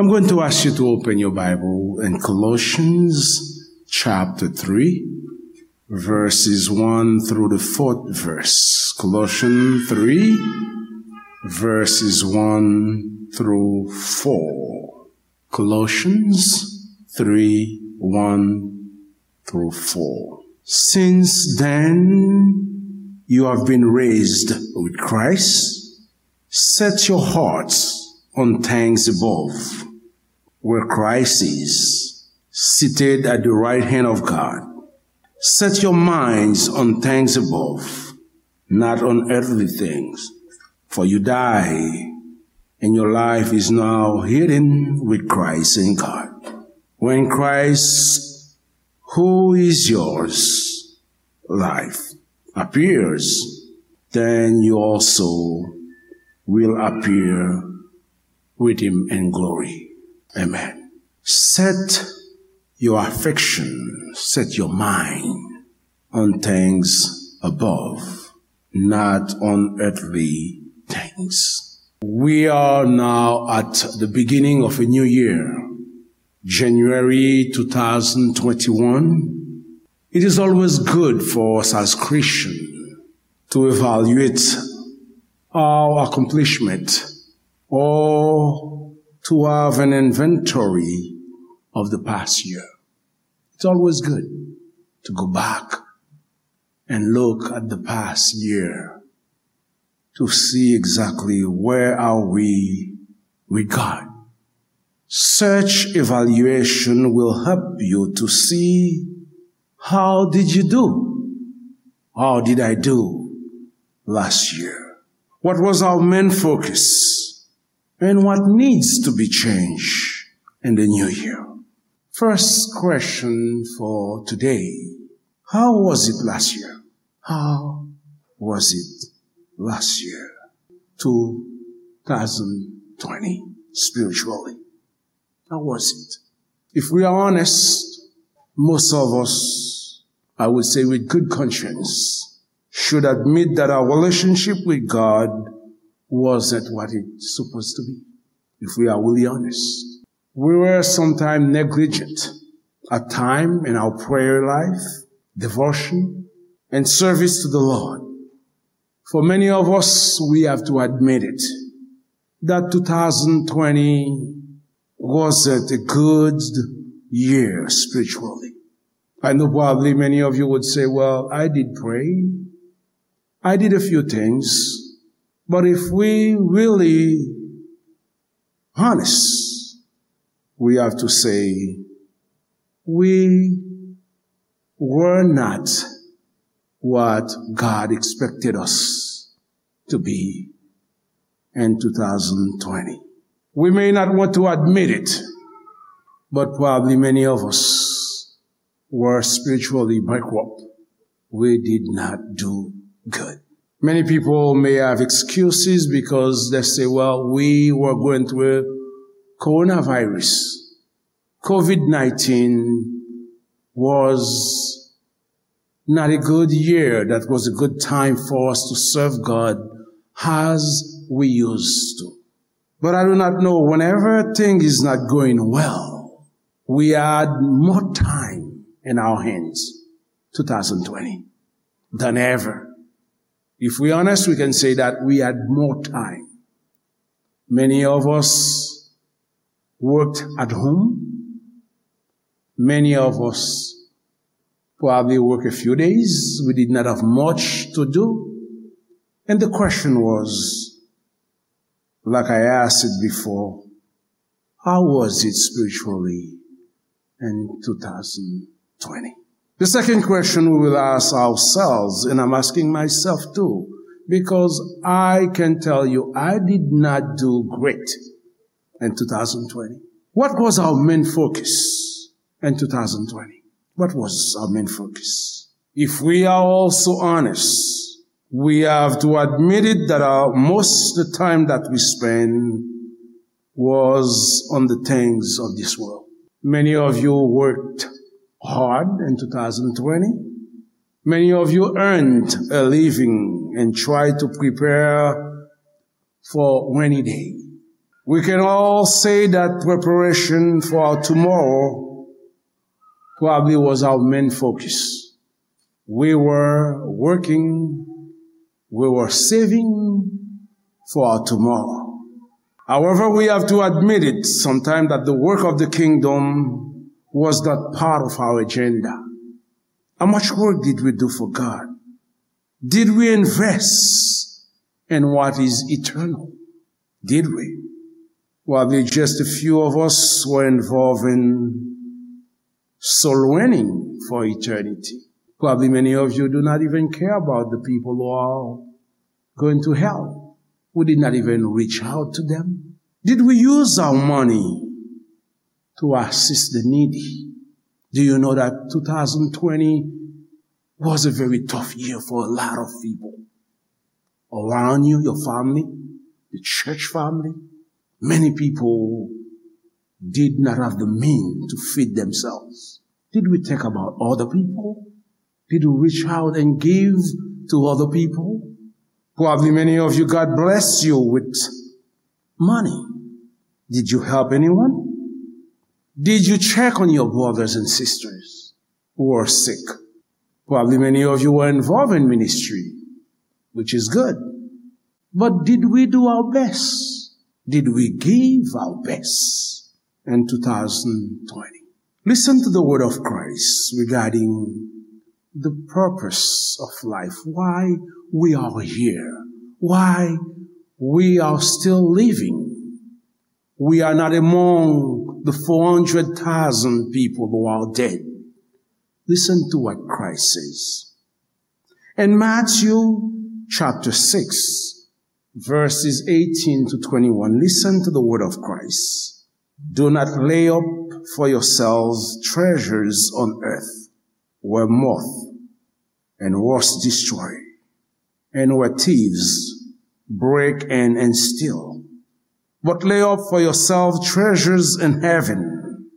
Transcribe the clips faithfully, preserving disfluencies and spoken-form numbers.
I'm going to ask you to open your Bible in Colossians chapter three, verses one through the fourth verse. Colossians three, verses one through four. Colossians three, one through four. Since then you have been raised with Christ, set your hearts on things above, where Christ is, seated at the right hand of God. Set your minds on things above, not on earthly things. For you die, and your life is now hidden with Christ in God. When Christ, who is yours, life, appears, then you also will appear with him in glory. Amen. Set your affection, set your mind on things above, not on earthly things. We are now at the beginning of a new year, January two thousand twenty-one. It is always good for us as Christians to evaluate our accomplishment or to have an inventory of the past year. It's always good to go back and look at the past year to see exactly where are we with God. Such evaluation will help you to see, how did you do? How did I do last year? What was our main focus? And what needs to be changed in the new year? First question for today. How was it last year? How was it last year? two thousand twenty, spiritually. How was it? If we are honest, most of us, I would say with good conscience, should admit that our relationship with God wasn't what it's supposed to be. If we are really honest, we were sometimes negligent at time in our prayer life, devotion, and service to the Lord. For many of us, we have to admit it, that two thousand twenty wasn't a good year spiritually. I know probably many of you would say, "Well, I did pray. I did a few things." But if we really honest, we have to say we were not what God expected us to be in two thousand twenty. We may not want to admit it, but probably many of us were spiritually bankrupt. We did not do good. Many people may have excuses because they say, "Well, we were going through coronavirus. COVID nineteen was not a good year. That was a good time for us to serve God as we used to." But I do not know, whenever thing is not going well, we had more time in our hands, two thousand twenty, than ever. If we're honest, we can say that we had more time. Many of us worked at home. Many of us probably work a few days. We did not have much to do. And the question was, like I asked it before, how was it spiritually in two thousand twenty? The second question we will ask ourselves, and I'm asking myself too, because I can tell you I did not do great in two thousand twenty. What was our main focus in two thousand twenty? What was our main focus? If we are also honest, we have to admit it that our, most of the time that we spend was on the things of this world. Many of you worked hard in two thousand twenty. Many of you earned a living and tried to prepare for rainy day. We can all say that preparation for our tomorrow probably was our main focus. We were working, we were saving for our tomorrow. However, we have to admit it sometimes that the work of the kingdom was not part of our agenda. How much work did we do for God? Did we invest in what is eternal? Did we? Probably just a few of us were involved in soul winning for eternity. Probably many of you do not even care about the people who are going to hell. We did not even reach out to them. Did we use our money to assist the needy? Do you know that two thousand twenty was a very tough year for a lot of people around you, your family, the church family? Many people did not have the means to feed themselves. Did we think about other people? Did we reach out and give to other people? Probably many of you, God blessed you with money. Did you help anyone? Did you check on your brothers and sisters who are sick? Probably many of you were involved in ministry, which is good. But did we do our best? Did we give our best in two thousand twenty? Listen to the word of Christ regarding the purpose of life, why we are here, why we are still living. We are not among the four hundred thousand people who are dead. Listen to what Christ says. In Matthew chapter six, verses eighteen to twenty-one, listen to the word of Christ. Do not lay up for yourselves treasures on earth, where moth and rust destroy, and where thieves break in and steal. But lay up for yourselves treasures in heaven,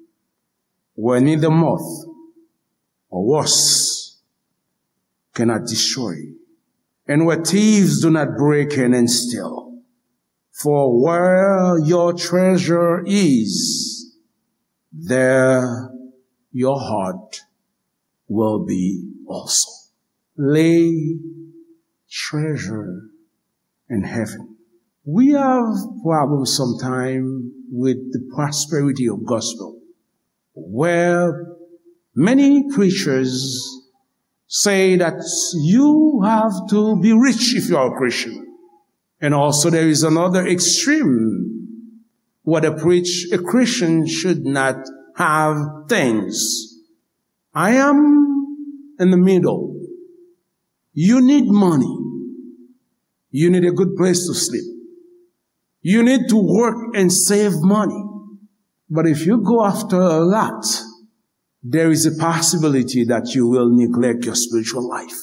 where neither moth or rust cannot destroy, and where thieves do not break in and steal. For where your treasure is, there your heart will be also. Lay treasure in heaven. We have problems sometimes with the prosperity of gospel, where many preachers say that you have to be rich if you are a Christian. And also, there is another extreme where they preach a Christian should not have things. I am in the middle. You need money. You need a good place to sleep. You need to work and save money. But if you go after a lot, there is a possibility that you will neglect your spiritual life.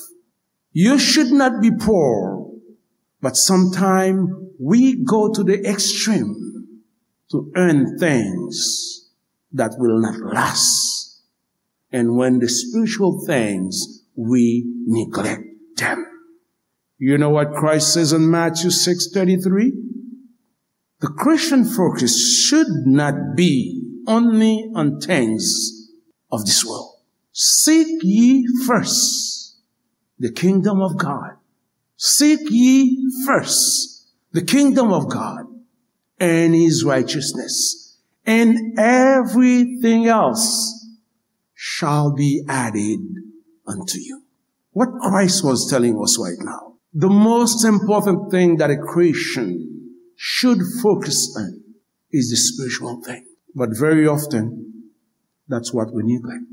You should not be poor, but sometimes we go to the extreme to earn things that will not last. And when the spiritual things, we neglect them. You know what Christ says in Matthew six thirty-three? The Christian focus should not be only on things of this world. Seek ye first the kingdom of God. Seek ye first the kingdom of God and his righteousness, and everything else shall be added unto you. What Christ was telling us right now, the most important thing that a Christian should focus on is the spiritual thing. But very often, that's what we neglect.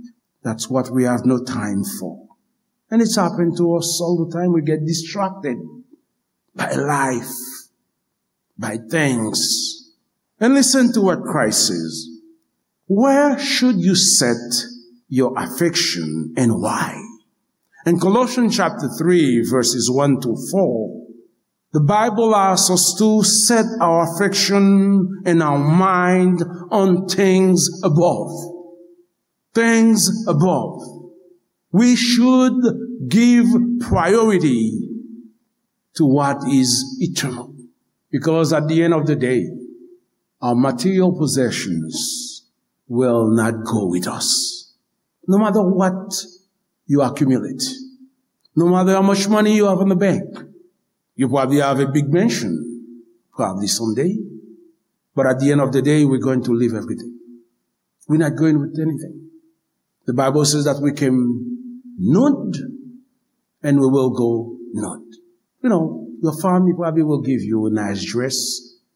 That's what we have no time for. And it's happened to us all the time. We get distracted by life, by things. And listen to what Christ says. Where should you set your affection and why? In Colossians chapter three, verses one to four, the Bible asks us to set our affection and our mind on things above. Things above. We should give priority to what is eternal. Because at the end of the day, Our material possessions will not go with us. No matter what you accumulate, no matter how much money you have in the bank, you probably have a big mansion, probably someday. But at the end of the day, we're going to leave everything. We're not going with anything. The Bible says that we came nude and we will go nude. You know, your family probably will give you a nice dress,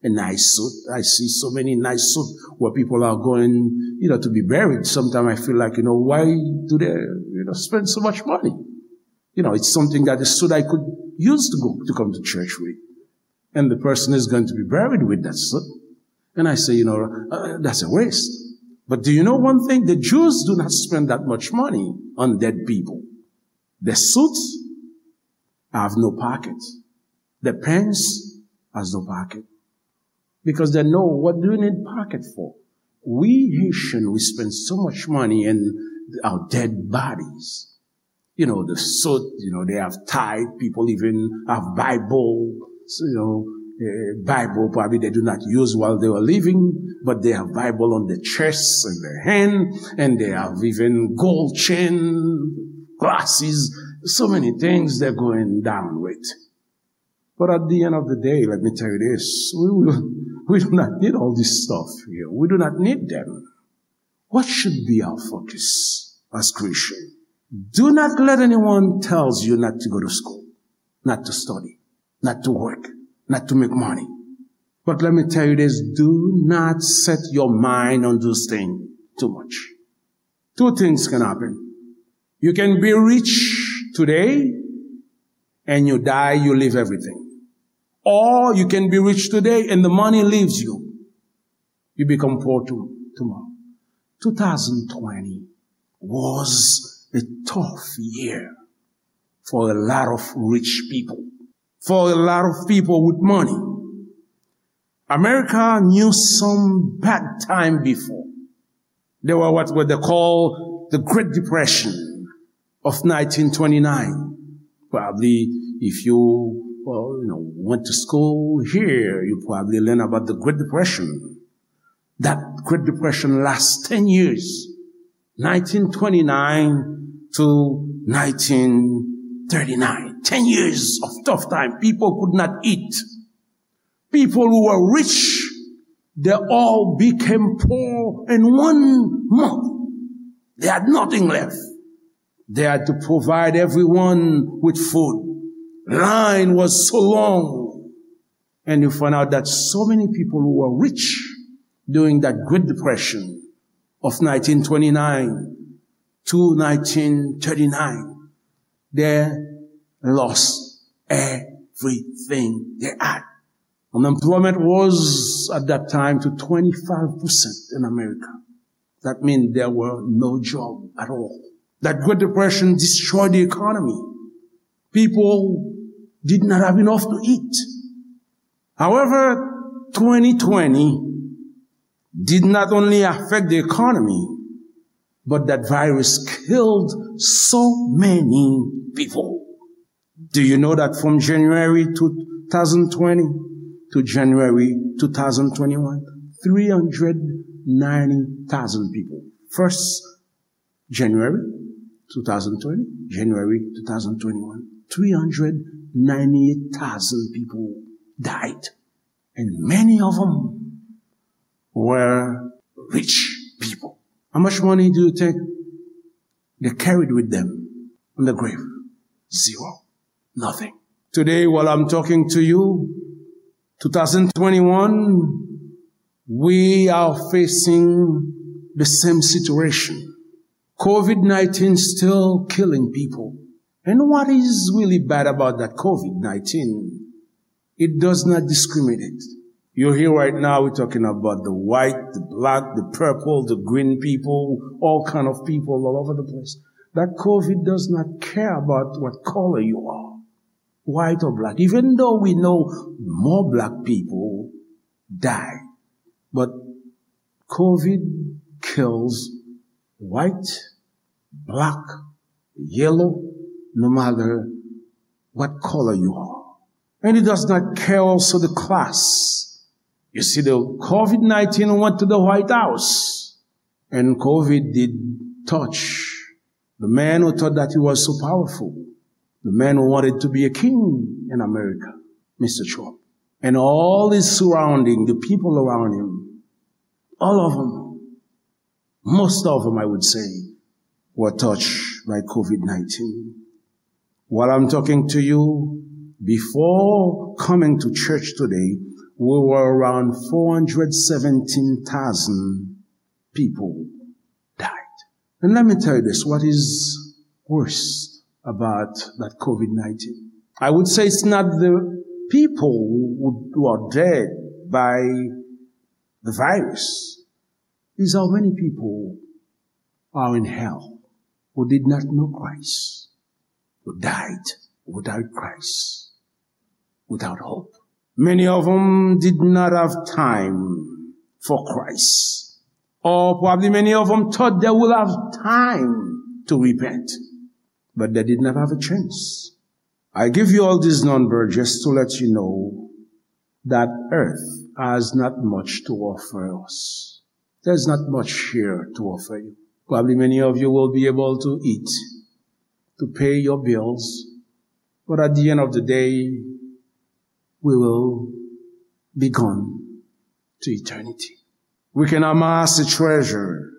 a nice suit. I see so many nice suits where people are going, you know, to be buried. Sometimes I feel like, you know, why do they, you know, spend so much money? You know, it's something that the suit I could use to go to come to church with. And the person is going to be buried with that suit. And I say, you know, uh, that's a waste. But do you know one thing? The Jews do not spend that much money on dead people. The suits have no pocket. The pants has no pocket. Because they know, what do you need pocket for? We Haitian, we spend so much money in our dead bodies. You know, the suit, you know, they have tithe, people even have Bible, so, you know, uh, Bible probably they do not use while they were living, but they have Bible on the chest and their hand, and they have even gold chain, glasses, so many things they're going down with. But at the end of the day, let me tell you this, we, will, we do not need all this stuff here. We do not need them. What should be our focus as Christian? Do not let anyone tells you not to go to school, not to study, not to work, not to make money. But let me tell you this, do not set your mind on those things too much. Two things can happen. You can be rich today and you die, you leave everything. Or you can be rich today and the money leaves you. You become poor to, tomorrow. Two thousand twenty was a tough year for a lot of rich people, for a lot of people with money. America knew some bad time before. There were what, what they call the Great Depression of nineteen twenty-nine. Probably, if you, uh, you know, went to school here, you probably learn about the Great Depression. That Great Depression lasts ten years, nineteen twenty-nine to nineteen thirty-nine. Ten years of tough time. People could not eat. People who were rich, they all became poor in one month. They had nothing left. They had to provide everyone with food. Line was so long. And you find out that so many people who were rich during that Great Depression of nineteen twenty-nine to nineteen thirty-nine, they lost everything they had. Unemployment was at that time to twenty-five percent in America. That means there were no job at all. That Great Depression destroyed the economy. People did not have enough to eat. However, twenty twenty did not only affect the economy, but that virus killed so many people. Do you know that from January two thousand twenty to January two thousand twenty-one, three hundred ninety thousand people? First January two thousand twenty, January two thousand twenty-one, three hundred ninety-eight thousand people died. And many of them were rich people. How much money do you think they carried with them in the grave? Zero. Nothing. Today, while I'm talking to you, two thousand twenty-one, we are facing the same situation. COVID nineteen still killing people. And what is really bad about that COVID nineteen? It does not discriminate. You hear right now, we're talking about the white, the black, the purple, the green people, all kind of people all over the place. That COVID does not care about what color you are, white or black, even though we know more black people die. But COVID kills white, black, yellow, no matter what color you are. And it does not care also the class. You see, the COVID nineteen went to the White House, and COVID did touch the man who thought that he was so powerful, the man who wanted to be a king in America, Mister Trump, and all his surrounding, the people around him, all of them, most of them, I would say, were touched by COVID nineteen. While I'm talking to you, before coming to church today, we were around four hundred seventeen thousand people died. And let me tell you this, what is worse about that COVID nineteen? I would say it's not the people who, who are dead by the virus, is how many people are in hell who did not know Christ, who died without Christ, without hope. Many of them did not have time for Christ. Or probably many of them thought they will have time to repent, but they did not have a chance. I give you all this number just to let you know that earth has not much to offer us. There's not much here to offer you. Probably many of you will be able to eat, to pay your bills, but at the end of the day, we will be gone to eternity. We can amass a treasure,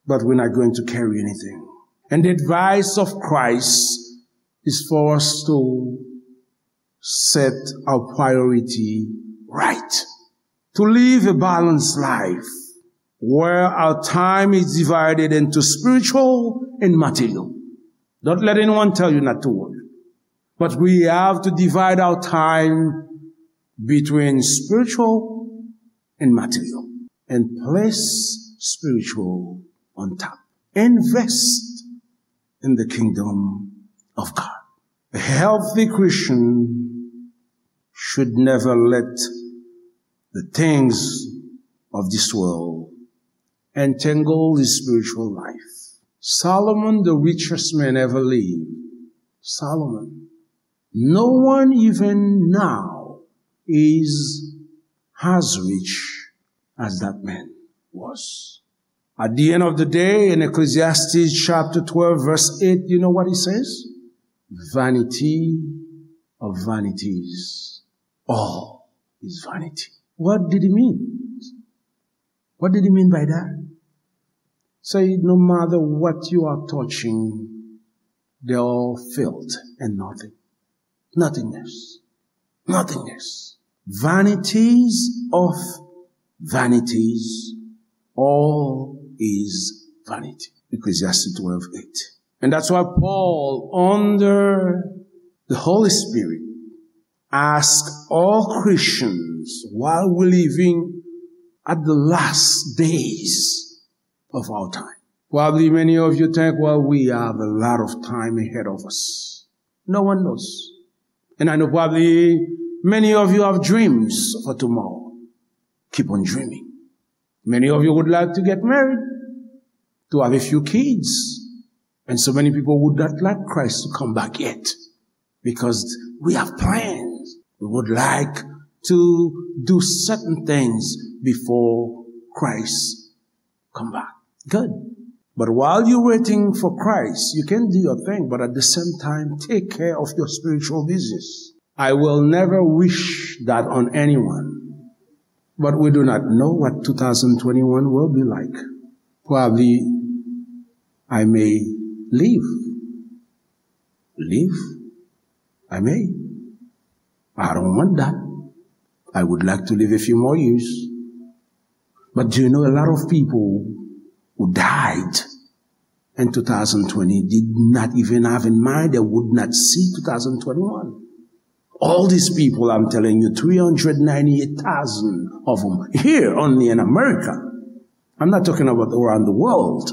but we're not going to carry anything. And the advice of Christ is for us to set our priority right, to live a balanced life where our time is divided into spiritual and material. Don't let anyone tell you not to work. But we have to divide our time between spiritual and material and place spiritual on top. Invest in the kingdom of God. A healthy Christian should never let the things of this world entangle his spiritual life. Solomon, the richest man ever lived, Solomon, no one even now is as rich as that man was. At the end of the day, in Ecclesiastes chapter twelve, verse eight, you know what he says? Vanity of vanities. All is vanity. What did he mean? What did he mean by that? Say, no matter what you are touching, they're all filth and nothing. Nothingness. Nothingness. Vanities of vanities. All is vanity. Ecclesiastes twelve eight. And that's why Paul, under the Holy Spirit, asked all Christians while we're living at the last days of our time. Probably many of you think, well, we have a lot of time ahead of us. No one knows. And I know probably many of you have dreams for tomorrow. Keep on dreaming. Many of you would like to get married, to have a few kids. And so many people would not like Christ to come back yet because we have plans. We would like to do certain things before Christ come back. Good. But while you're waiting for Christ, you can do your thing, but at the same time, take care of your spiritual business. I will never wish that on anyone. But we do not know what two thousand twenty-one will be like. Probably I may live. Live? I may. I don't want that. I would like to live a few more years. But do you know a lot of people who died in two thousand twenty did not even have in mind they would not see two thousand twenty-one? All these people, I'm telling you, three hundred ninety-eight thousand of them here only in America. I'm not talking about around the world.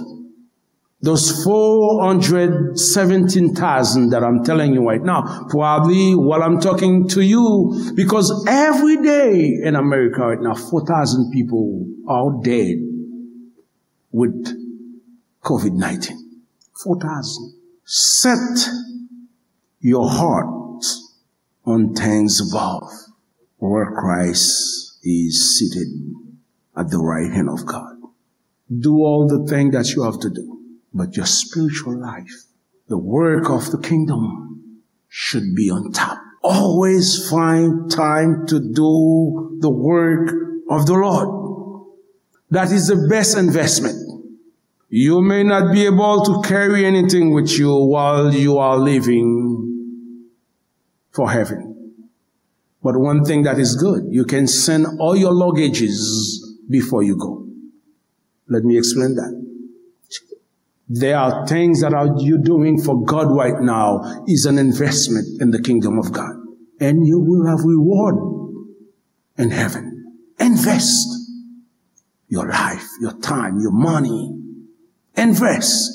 Those four hundred seventeen thousand that I'm telling you right now, probably while I'm talking to you, because every day in America right now, four thousand people are dead with COVID nineteen. Four thousand. Set your heart on things above, where Christ is seated at the right hand of God. Do all the things that you have to do, but your spiritual life, the work of the kingdom, should be on top. Always find time to do the work of the Lord. That is the best investment. You may not be able to carry anything with you while you are leaving for heaven. But one thing that is good, you can send all your luggages before you go. Let me explain that. There are things that are you doing for God right now is an investment in the kingdom of God. And you will have reward in heaven. Invest your life, your time, your money. Invest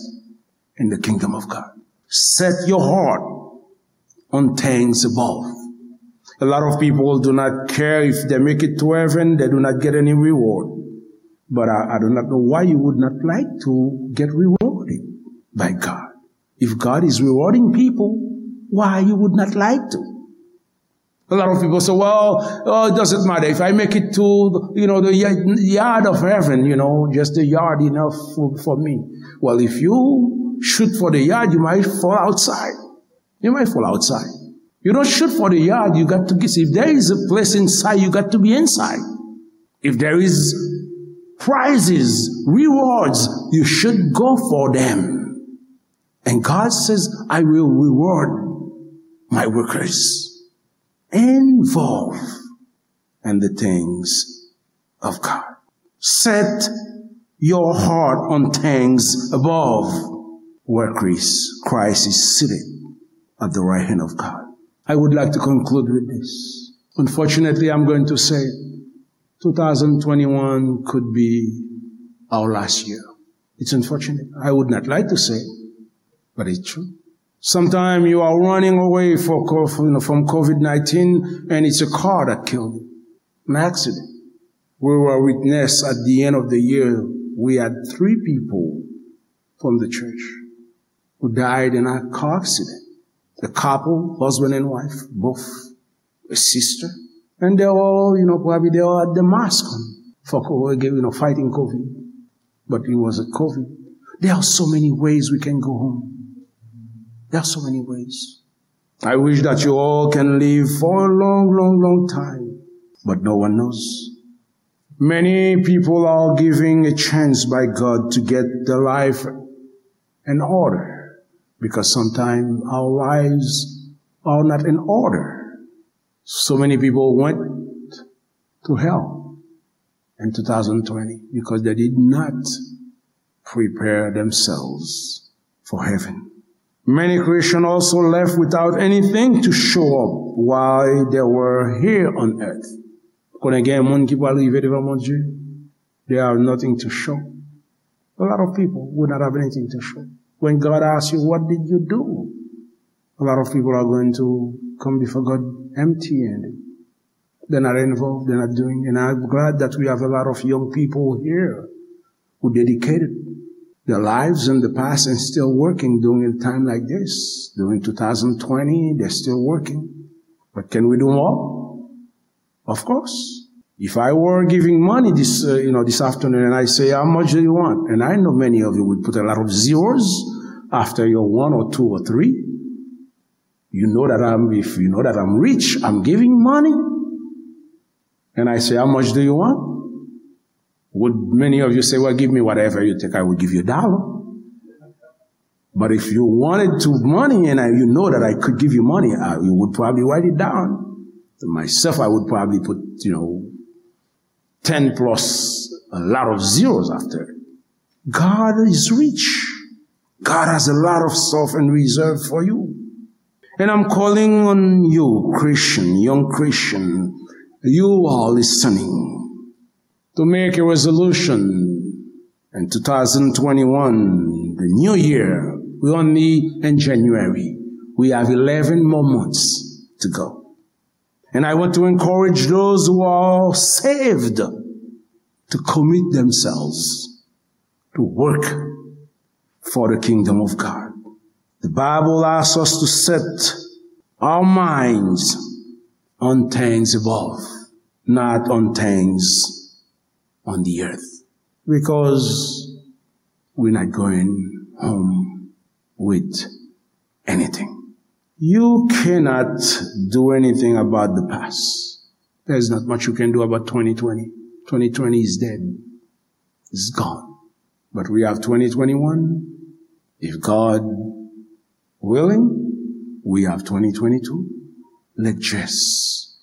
in the kingdom of God. Set your heart on things above. A lot of people do not care if they make it to heaven, they do not get any reward. But I, I do not know why you would not like to get rewarded by God. If God is rewarding people, why you would not like to? A lot of people say, well, oh, it doesn't matter if I make it to, you know, the yard of heaven, you know, just the yard enough for, for me. Well, if you shoot for the yard, you might fall outside. You might fall outside. You don't shoot for the yard, you got to get, if there is a place inside, you got to be inside. If there is prizes, rewards, you should go for them. And God says, I will reward my workers. Involved in the things of God. Set your heart on things above, where Christ, Christ is seated at the right hand of God. I would like to conclude with this. Unfortunately, I'm going to say two thousand twenty-one could be our last year. It's unfortunate. I would not like to say, but it's true. Sometimes you are running away for, co- from, you know, from COVID nineteen, and it's a car that killed you. An accident. We were witness at the end of the year, we had three people from the church who died in a car accident. A couple, husband and wife, both a sister. And they were all, you know, probably they all had the mask on for, co- you know, fighting COVID. But it wasn't COVID. There are so many ways we can go home. There are so many ways. I wish that you all can live for a long, long, long time. But no one knows. Many people are giving a chance by God to get their life in order, because sometimes our lives are not in order. So many people went to hell in two thousand twenty because they did not prepare themselves for heaven. Many Christians also left without anything to show up while they were here on earth. Konnen gen moun ki pral rive devan Bondye, they have nothing to show. A lot of people would not have anything to show. When God asks you, what did you do? A lot of people are going to come before God empty-handed. They're not involved, they're not doing. And I'm glad that we have a lot of young people here who dedicated their lives in the past and still working during a time like this. During two thousand twenty, they're still working. But can we do more? Of course. If I were giving money this, uh, you know, this afternoon and I say, how much do you want? And I know many of you would put a lot of zeros after your one or two or three. You know that I'm, if you know that I'm rich, I'm giving money. And I say, how much do you want? Would many of you say, well, give me whatever you think, I will give you a dollar? But if you wanted to money and I, you know that I could give you money, I, you would probably write it down. Myself, I would probably put, you know, ten plus a lot of zeros after it. God is rich. God has a lot of stuff in reserve for you. And I'm calling on you, Christian, young Christian, you are listening, to make a resolution in two thousand twenty-one, the new year. We're only in January. We have eleven more months to go. And I want to encourage those who are saved to commit themselves to work for the kingdom of God. The Bible asks us to set our minds on things above. not on things on the earth, because we're not going home with anything. You cannot do anything about the past. There's not much you can do about twenty twenty. Twenty twenty is dead. It's gone. But we have twenty twenty-one. If God willing, we have twenty twenty-two. Let's just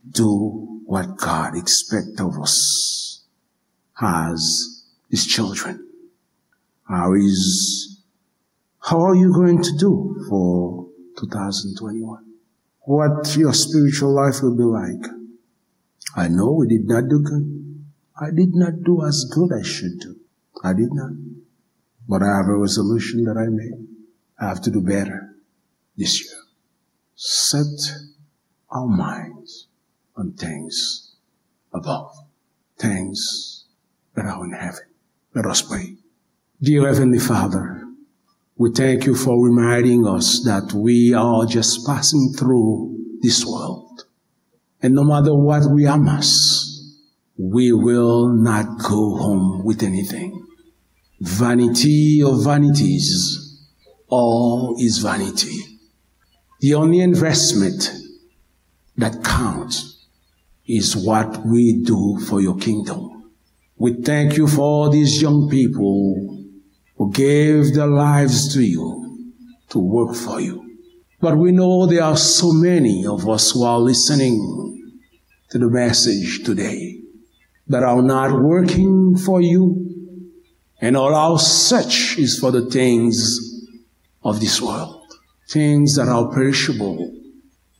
do what God expects of us as His children. How is, how are you going to do for two thousand twenty-one? What your spiritual life will be like? I know we did not do good. I did not do as good as I should do. I did not. But I have a resolution that I made. I have to do better this year. Set our minds on things above, things that are in heaven. Let us pray. Dear Heavenly Father, we thank you for reminding us that we are just passing through this world. And no matter what we amass, we will not go home with anything. Vanity of vanities, all is vanity. The only investment that counts is what we do for your kingdom. We thank you for all these young people who gave their lives to you, to work for you. But we know there are so many of us who are listening to the message today that are not working for you, and all our search is for the things of this world, things that are perishable,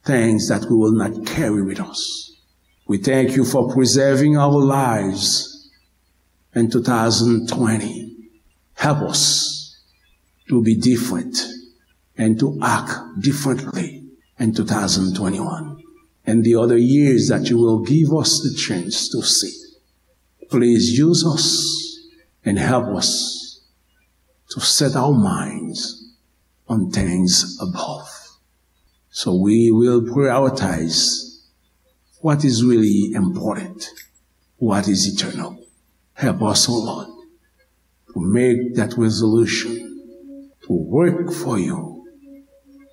things that we will not carry with us. We thank you for preserving our lives in two thousand twenty. Help us to be different and to act differently in two thousand twenty-one and the other years that you will give us the chance to see. Please use us and help us to set our minds on things above. So we will prioritize what is really important, what is eternal. Help us, O Lord, to make that resolution to work for you,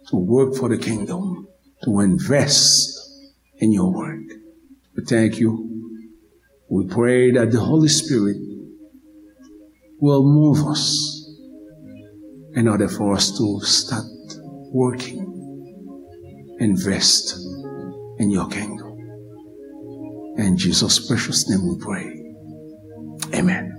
to work for the kingdom, to invest in your work. We thank you. We pray that the Holy Spirit will move us in order for us to start working, invest in your kingdom. In Jesus' precious name we pray. Amen.